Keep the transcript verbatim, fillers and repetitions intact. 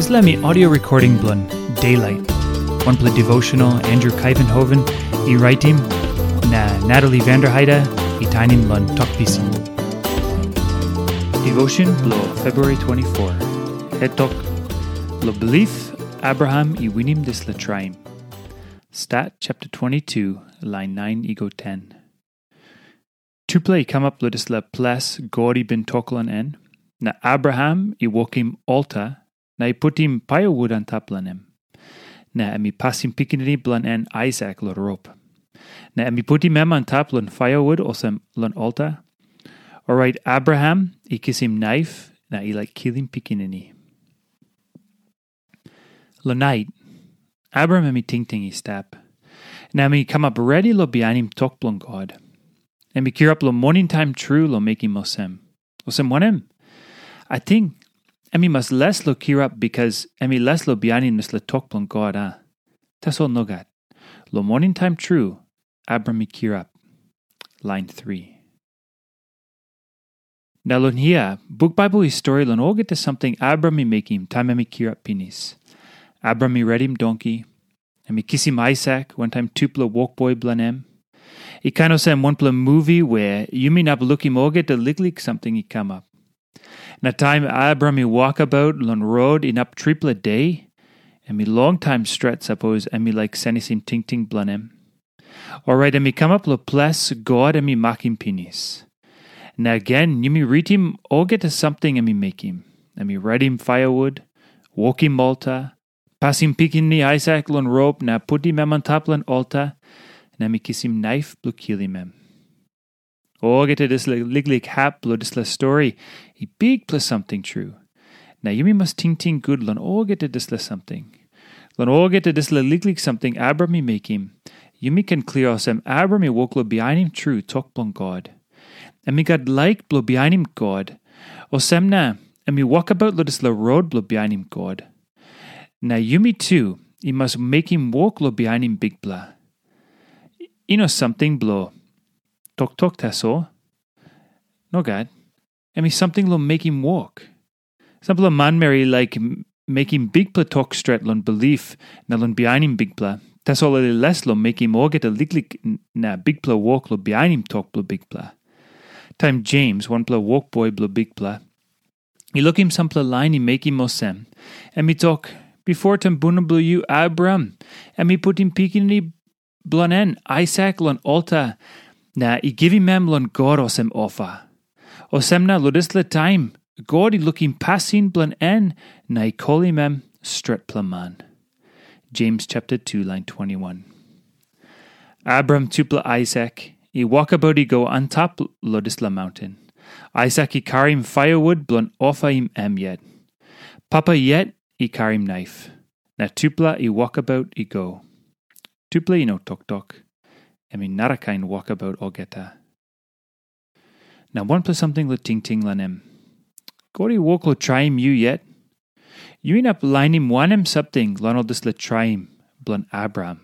Dispela mi audio recording bilong Daylight, wanpela devotional Andrew Kaivenhoven i raitim, na Natalie Vanderheide i tainim long Tok Pisin. Devotion bilong February twenty-four. Het tok, lo bilip Abraham i winim dispela traim. Stat chapter twenty-two, lain nine i go ten. Tupela i kamap long dispela ples God i bin tok long en, na Abraham i wokim alta na i putim paiawut antap long em. Na em i pasim pikinini bilong en Aisak long rop. Na em i putim em antap long paiawut olsem long alta. Orait Abraham i kisim naif na i laik kilim pikinini. Long nait, Abraham em i tingting i stap, na em i kamap redi long bihainim tok bilong God. Em i kirap long moning taim tru long mekim olsem. Olsem wanem? Ating em i mas les long kirap bikas em i les long bihainim dispela tok bilong God, a? Tasol nogat. Long moning taim tru, Abraham i kirap. Lain three. Na long hia, buk Baibel i stori long olgeta samting Abraham i mekim taim em i kirap pinis. Abraham i redim donki, em i kisim Aisak wantaim tupela wokboi bilong em. I kain olsem wanpela muvi wea yumi inap lukim olgeta liklik samting i kamap. Na taim Abraham i wokabaut long rot inap tripela de, em i longtaim stret sapos em i laik senisim tingting bilong em. Orait em i kamap long ples God em i makim pinis. Na gen yumi ritim olgeta samting em i mekim. Em i redim paiawut, wokim alta, pasim pikinini Aisak long rop na putim em antap long alta, na em i kisim naif bilong kilim em. Olgeta dispela liklik hap bilong dispela stori i bikpela samting tru. Na yumi mas tingting gut long olgeta dispela samting. Long olgeta dispela liklik samting Abraham i mekim, yumi ken klia olsem Abraham i wok long bihainim tru tok bilong God. Em i gat laik bilong bihainim God, olsem na em i wokabaut long dispela rot bilong bihainim God. Na yumi tu i mas mekim wok long bihainim Bikpela. I no samting bilong toktok tasol. Nogat. Em i samting long mekim wok. Sampela manmeri i laik m- mekim bikpela tok stret long bilip na long bihainim Bikpela, tasol ol i les long mekim olgeta liklik n- na bikpela wok long bihainim tok bilong Bikpela. Taim Jems, wanpela wokboi bilong Bikpela, i lukim sampela lain i mekim olsem, em i tok, "Bipo tumbuna bilong yu, Abraham, em i putim pikinini bilong en, Aisak, long alta, na i givim em long God olsem ofa." Olsem na long dispela taim, God i lukim pasin bilong en na i kolim em stretpela man. Jems chapter two, lain twenty-one. Abraham tupela Aisak i wokabaut i go antap long dispela maunten. Aisak i karim paiawut bilong ofaim em yet. Papa yet i karim naif, na tupela i wokabaut i go. Tupela i no toktok. Em i narakain wokabaut olgeta. Na wanpela samting long tingting long em. God i wok long traim yu yet? Yu inap lainim wanem samting long ol dispela traim bilong Abraham?